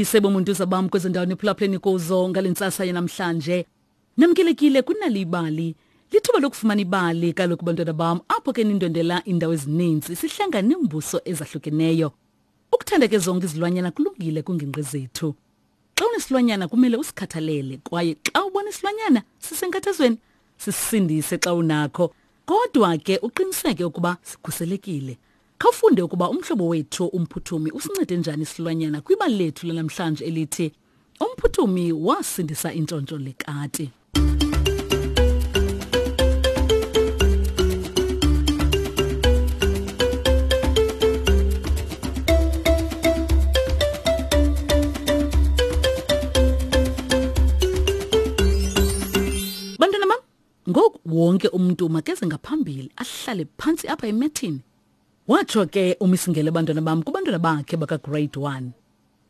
Mandibulise bomuntuza bam kwezo ndawo niphulaphuleni kuzo ngale ntsasa yanamhlanje. Namkelekile kunali ibali. Lithuba lokufumana ibali kaloku bantwana bam apho ke nindwendela iindawo ezininzi sihlangana neembuso ezahlukeneyo. Ukuthanda ke zonke izilwanyana kulungile kwingingqi zethu. Xa unesilwanyana kumele usikhathalele kwaye xa ubona isilwanyana sisenkathazweni sisindise xa unakho. Kodwa ke uqiniseke ukuba sikhuselekile. Khawufunde ukuba umhlobo wethu uMphuthumi usincede njani isilwanyana kwibali lethu lanamhlanje elithi Umphuthumi wasindisa intshontsho lekati. Bantwana bam, ngoku wonke umntu makeze ngaphambili ahlale phantsi apha emethini. Watsho ke uMisingele bantwana bam kubantwana bakhe bakagrade 1.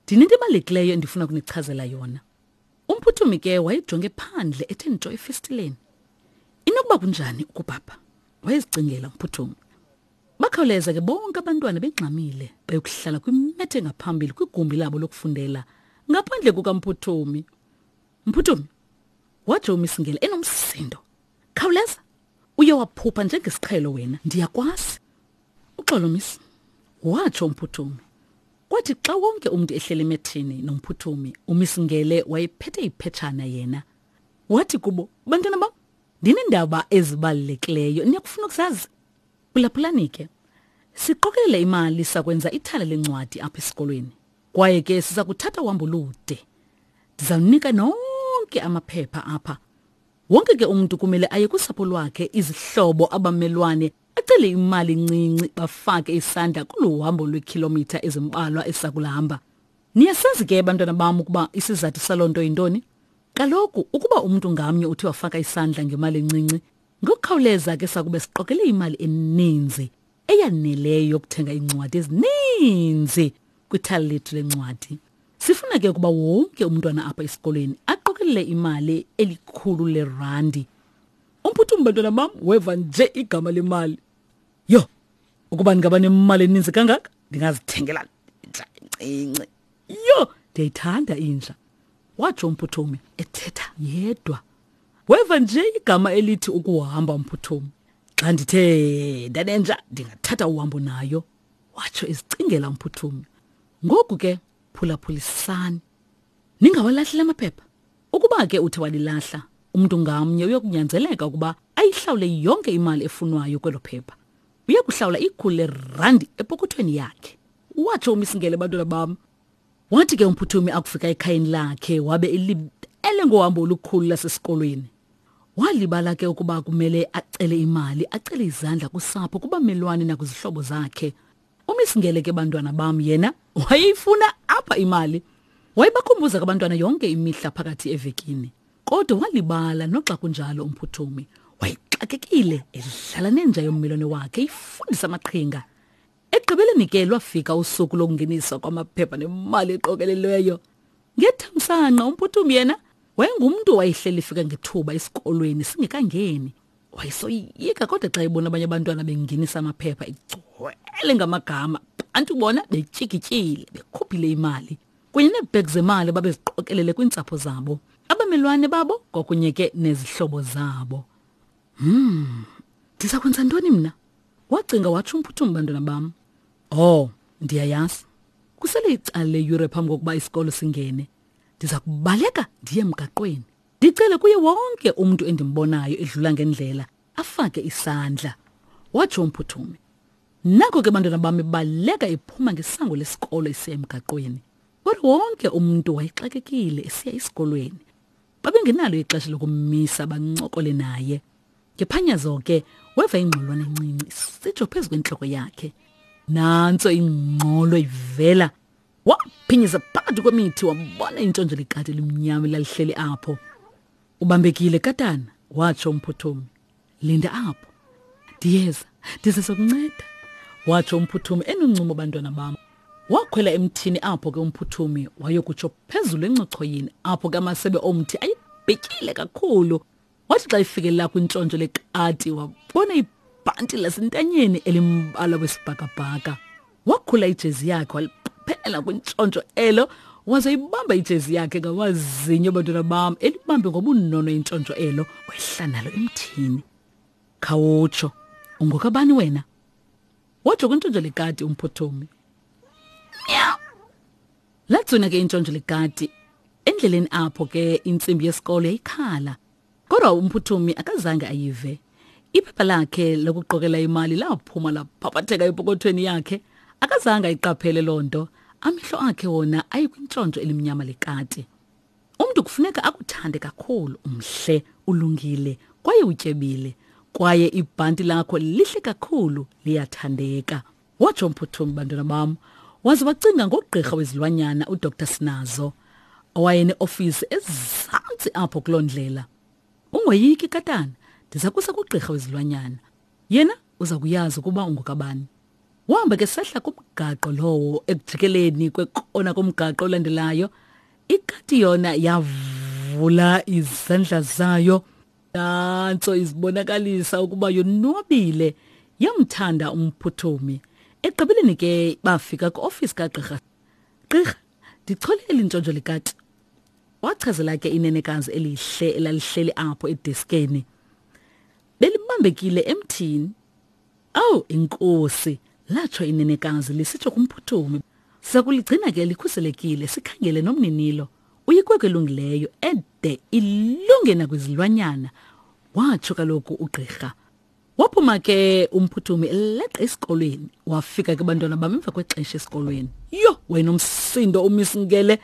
Ndinento ebalulekileyo endifuna ukunichazela yona. Umphuthumi ke wayejonge phandle ethe ntsho efestileni. Inokuba kunjani ukubhabha? Wayezicingela umphuthumi. Bakhawuleza ke bonke abantwana bengxamile beyokuhlala kwimethe engaphambili kwigumbi labo lokufundela ngaphandle kukamphuthumi. Mphuthumi, watsho uMisingele enomsindo. Khawuleza, uye waphupha njengesiqhelo wena, ndiyakwazi. Uxolo miss, watsho uMphuthumi. Kwathi xa wonke umntu ehleli emethini noMphuthumi, uMiss Ngele wayephethe iphetshana yena. Wathi kubo, bantwana bam, ndineendaba ezibalulekileyo, niyakufuna ukuzazi? Phulaphulani ke. Siqokelele imali sakwenza ithala lencwadi apha esikolweni. Kwaye ke siza kuthatha uhambo olude. Ndizawunika nonke amaphepha apha. Wonke ke umntu kumele aye kusapho lwakhe, izihlobo, abamelwane, acele imali encinci bafake isandla kolu hambo lweekhilomitha ezimbalwa esakulahamba. Niyasazi ke bantwana bam ukuba isizathu saloo nto yintoni? Kaloku ukuba umntu ngamnye uthe wafaka isandla ngemali encinci, ngokukhawuleza ke sakube siqokele imali eninzi eyaneleyo yokuthenga iincwadi ezininzi kwithala lethu lencwadi. Sifuna ke ukuba wonke umntwana apha esikolweni aqokelele imali elikhulu lerandi. Umphuthumi bantwana bam weva nje igama lemali. Yho, ukuba ndingaba nemali eninzi kangaka ndingazithengela inja encinci. Yho, ndiyayithanda inja, watsho umphuthumi ethetha yedwa. Weva nje igama elithi ukuhamba umphuthumi. Xa ndithe ndanenja ndingathatha uhambo nayo, watsho ezicingela umphuthumi. Ngoku ke phulaphulisani. Ningawalahli la maphepha. Ukuba ke uthe walilahla, umntu ngamnye uyokunyanzeleka ukuba ayihlawule yonke imali efunwayo kwelo phepha. Uya kuhlawula ikhulu lerandi epokothweni yakhe. Watsho uMisingele bantwana bam. Wathi ke uMphuthumi akufika ekhayeni lakhe wabe elibele ngohambo olukhulu lasesikolweni. Walibala ke ukuba kumele acele imali, acele izandla kusapho, kubamelwane nakwizihlobo zakhe. UMisingele ke bantwana bam yena wayeyifuna apha imali. Wayebakhumbuza ke abantwana yonke imihla phakathi evekini. Kodwa walibala noxa kunjalo uMphuthumi. Wayexakekile edlala nenja yommelwane wakhe ifundisa amaqhinga. Ekugqibeleni ke lwafika usuku lokungeniswa kwamaphepha nemali eqokelelweyo. Ngethamsanqa uMphuthumi yena wayengumntu owayehleli efika ngethuba esikolweni singekangeni. Wayesoyika kodwa xa ebona abanye abantwana bengenisa amaphepha egcwele ngamagama, bantu bona betyikityile bekhuphile imali kunye neebhegi zemali babeziqokelele kwiintsapho zabo, abamelwane babo kwakunye ke nezihlobo zabo. Hmm, ndiza kwenza ntoni mna? Wacinga watsho uMphuthumi bantwana bam. Oh, ndiyayazi. Kusele icala leyure phambi kokuba isikolo singene. Ndiza kubaleka ndiye emgaqweni. Ndicele kuye wonke umntu endimbonayo edlula ngendlela afake isandla, watsho uMphuthumi. Nako ke bantwana bam ebaleka ephuma ngesango lesikolo esiya emgaqweni. Kodwa wonke umntu wayexakekile esiya esikolweni. Babengenalo ixesha lokummisa bancokole naye. Ngephanyazo ke weva ingxolwana encinci isitsho phezu kwentloko yakhe. Nantso ingxolo ivela. Waphinyisa phakathi kwemithi wabona intshontsho likati elimnyama elalihleli apho. Ubambekile katana, watsho uMphuthumi. Linda apho. Ndiyeza, ndize sokunceda, watsho uMphuthumi enoncumo bantwana bam. Wakhwela emthini apho ke uMphuthumi wayokutsho phezulu encochoyini apho ke amasebe omthi ayebhityile kakhulu. Wathi xa ifikelela kwintshontsho lekati wabona ibhanti lasentanyeni elimbala wesibhakabhaka. Wakhula ijezi yakhe waliphelela kwintshontsho elo Waze ibamba ijezi yakhe ngamazinyo bantwana bam, elibambe ngobunono intshontsho elo, wehla nalo emthini. Khawutsho, ungokabani wena? Watsho kwintshontsho lekati uMphuthumi. Meow. Latswina ke intshontsho lekati. Endleleni apho ke intsimbi yesikolo yayikhala. Kodwa uMphuthumi akazange ayive. Iphepha lakhe lokuqokela imali laphuma laphaphatheka epokothweni yakhe. Akazange ayiqaphele loo nto. Amehlo akhe wona ayekwintshontsho elimnyama lekati. Umntu kufuneka akuthande kakhulu, umhle, ulungile kwaye utyebile. Kwaye ibhanti lakho lihle kakhulu, liyathandeka. Watsho uMphuthumi, bantwana bam, waze wacinga ngogqirha wezilwanyana uDr Sinazo owayeneofisi ezantsi apho kuloo ndlela. Ungoyiki katana, ndiza kusa kugqirha wezilwanyana. Yena uza kuyazi ukuba ungokabani. Wahamba ke sehla kumgaqo lowo ekujikeleni kwekona komgaqo olandelayo. Ikati yona yavula izandla zayo nantso izibonakalisa ukuba yonwabile yamthanda uMphuthumi. Ekugqibeleni ke bafika kwiofisi kagqirha. Gqirha, ndichole eli ntshontsho likati. Wachazela ke inenekazi elihle elalihleli apho edeskeni. Belibambekile emthini. Awu inkosi, latsho inenekazi lisitsho kuMphuthumi. Siza kuligcina ke likhuselekile sikhangele nomninilo. Uyikwekwe elungileyo ede ilunge nakwizilwanyana, watsho kaloku ugqirha. Waphuma ke uMphuthumi eleqa esikolweni. Wafika ke bantwana bam emva kwexesha esikolweni. Yho, wena umsindo umisingele.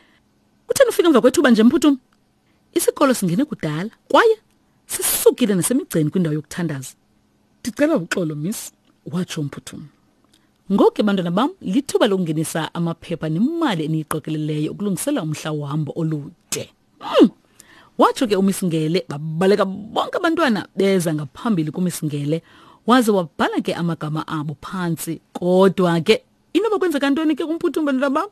Utheni ufika emva kwethuba nje Mphuthumi? Isikolo singene kudala kwaye sisukile nasemigceni kwindawo yokuthandaza. Ndicela uxolo miss, watsho uMphuthumi. Ngoku ke bantwana bam lithuba lokungenisa amaphepha nemali eniyiqokeleleyo ukulungisela umhla wohambo olude. Watsho ke uMisingele, babaleka bonke abantwana beza ngaphambili kuMisingele, waze wabhala ke amagama abo phantsi. Kodwa ke inoba kwenzeka ntoni ke kuMphuthumi bantwana bam?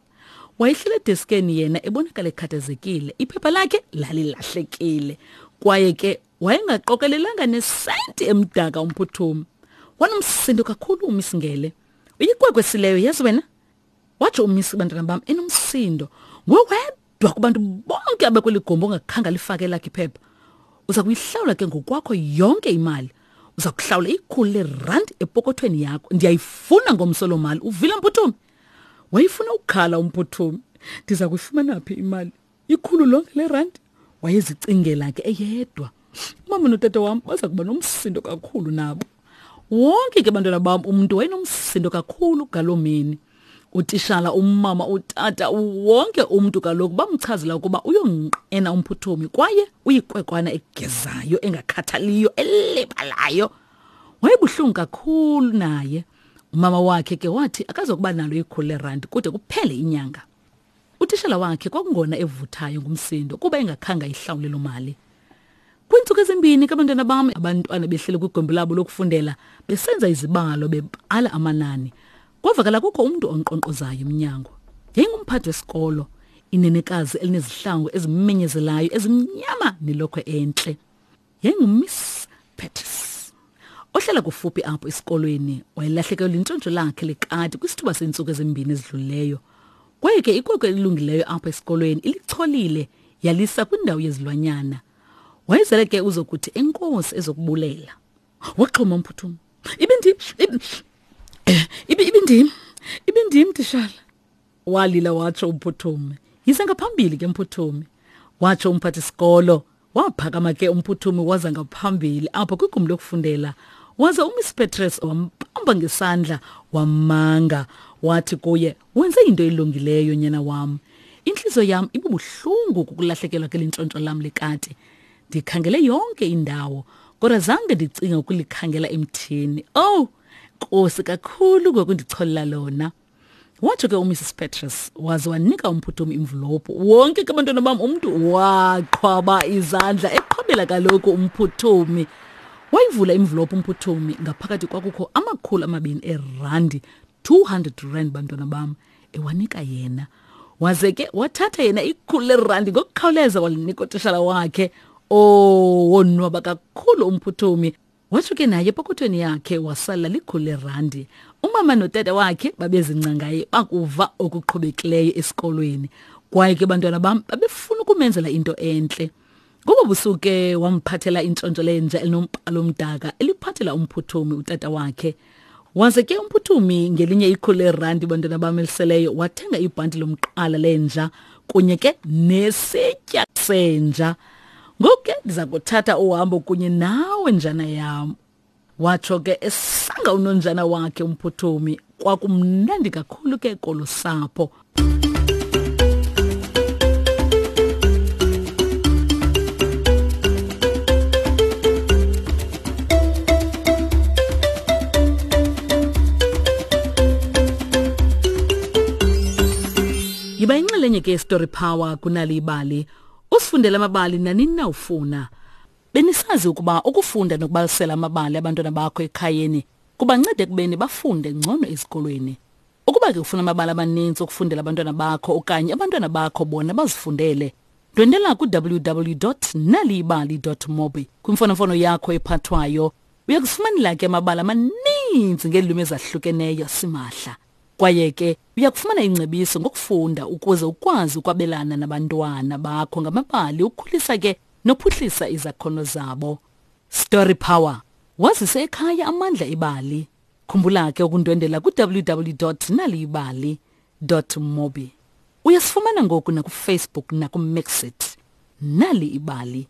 Wayehlele edeskeni yena ebonakala ekhathazekile, iphepha lakhe lalilahlekile kwaye ke wayengaqokelelanga nesenti emdaka uMphuthumi. Wanomsindo kakhulu uMisingele. Uyikwekwe sileyo yazi wena? Watsho uMisi bantwana bam enomsindo. Nguwe wedwa kubantu bonke abekweli gumbi ongakhange alifake elakhe iphepha. Uza kuyihlawula ke ngokwakho yonke imali. Uza kuhlawula ikhulu lerandi epokothweni yakho. Ndiyayifuna ngomso loo mali. Uvile Mphuthumi? Wayefuna ukukhala uMphuthumi. Ndiza kuyifumana phi imali? Ikhulu lonke lerandi? Wayezicingela ke eyedwa. Umama notata wam baza kuba nomsindo kakhulu nabo. Wonke ke bantwana bam umntu wayenomsindo kakhulu ngaloo mini. Utishala, umama, utata, wonke umntu kaloku bamchazela ukuba uyonqena uMphuthumi kwaye uyikwekwana egezayo, engakhathaliyo, elibalayo. Wayebuhlungu kakhulu naye. Umama wakhe ke wathi akazokuba nalo ikhulu lerandi kude kuphele inyanga. Utishala wakhe kwakungona evuthayo ngumsindo kuba engakhange ayihlawule loo mali. Kwiintsuku ezimbini ke bantwana bam, abantwana behleli kwigumbi labo lokufundela besenza izibalo bebala amanani. Kwavakala kukho umntu onkqonkqozayo emnyango. Yayingumphathi wesikolo, inenekazi elinezihlangu ezimenyezelayo ezimnyama nelokhwe entle. YayinguMiss Pettis ohlala kufuphi apho esikolweni. Wayelahlekelwe lintshontsho lakhe lekati kwisithuba seentsuku ezimbini ezidlulileyo. Kwaye ke ikwekwe elilungileyo apho esikolweni ilicholile yalisa kwindawo yezilwanyana. Wayezele ke uzokuthi enkosi ezokubulela. Waxhoma uMphuthumi. Ibindim, ibindim, ibindim tishala. Walila watsho uMphuthumi. Yize ngaphambili ke Mphuthumi, watsho umphathi-sikolo. Waphakama ke uMphuthumi waza ngaphambili apho kwigumbi lokufundela. Waza uMiss Petrus wambamba ngesandla wamanga wathi kuye, wenze into elungileyo nyana wam. Intliziyo yam ibubuhlungu kukulahlekelwa ke lintshontsho lam lekati. Ndikhangele yonke indawo kodwa zange ndicinge ukulikhangela emthini. Oh, nkosi kakhulu ngokundicholela lona. Watsho ke uMrs Petrus waze wanika uMphuthumi imvulophu. Wonke ke abantwana bam umntu waqhwaba izandla eqhwabela kaloku uMphuthumi. Wayivula imvulophu uMphuthumi, ngaphakathi kwakukho 200 erandi, 200 rand bantwana bam, ewanika yena. Waze ke wathatha yena 100 lerandi ngokukhawuleza walinika utishala wakhe. Oh, wonwaba kakhulu uMphuthumi. Watsho ke naye epokothweni yakhe wasala likhulu lerandi. Umama notata wakhe babezingca ngaye bakuva okuqhubekileyo esikolweni. Kwaye ke bantwana bam babefuna ukumenzela into entle. Ngobo busuku ke wamphathela intshontsho lenja elinombhalo omdaka eliphathela umphuthumi utata wakhe. Waze ke umphuthumi ngelinye ikhulu leerandi bantwana bam eliseleyo wathenga ibhanti lomqala lenja kunye ke nesitya senja. Ngoku ke ndiza kuthatha uhambo kunye nawe njana yam. Watsho ke esanga unonjana wakhe umphuthumi kwakumnandi kakhulu ke kolu sapho. Yiba inxalenye ke Story Power kunali ibali. Usifundele amabali nanini na ufuna. Benisazi ukuba ukufunda nokubalisela amabali abantwana bakho ekhayeni kubanceda ekubeni bafunde ngcono ezikolweni. Ukuba ke ufuna amabali amaninzi okufundela abantwana bakho okanye abantwana bakho bona bazifundele, ndwendela ku-www.naliyibali.mobi kwimfonomfono yakho ephathwayo. Uya kufumanela ke amabali amaninzi ngeelwimi ezahlukeneyo simahla. Kwaye ke uya kufumana ingcebiso ngokufunda ukuze ukwazi ukwabelana nabantwana bakho ngamabali ukhulisa ke nophuhlisa izakhono zabo. Story Power. Wazise ekhaya amandla ebali. Khumbula ke ukundwendela ku-www.naliyibali.mobi. Uyasifumana ngoku nakuFacebook nakuMixit. Nali ibali.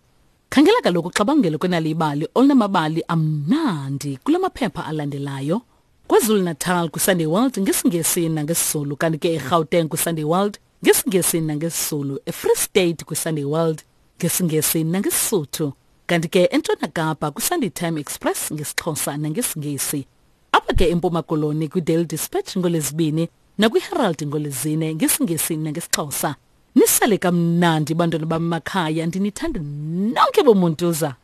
Khangela kaloku uxabangelo kwenali ibali olunamabali amnandi kula maphepha alandelayo. KwaZulu-Natal kwiSunday World ngesiNgesi nangesiZulu kanti ke eGauteng kwiSunday World ngesiNgesi nangesiZulu, eFree State kwiSunday World ngesiNgesi nangeSisuthu kanti ke eNtshona Kapa kwiSunday Time Express ngesiXhosa nangesiNgesi. Apha ke eMpuma Koloni kwiDaily Dispatch ngoLwezibini nakwiHerald ngoLwezine ngesiNgesi nangesiXhosa. Nisale kamnandi bantwana bam makhaya ndinithanda nonke bomuntuza.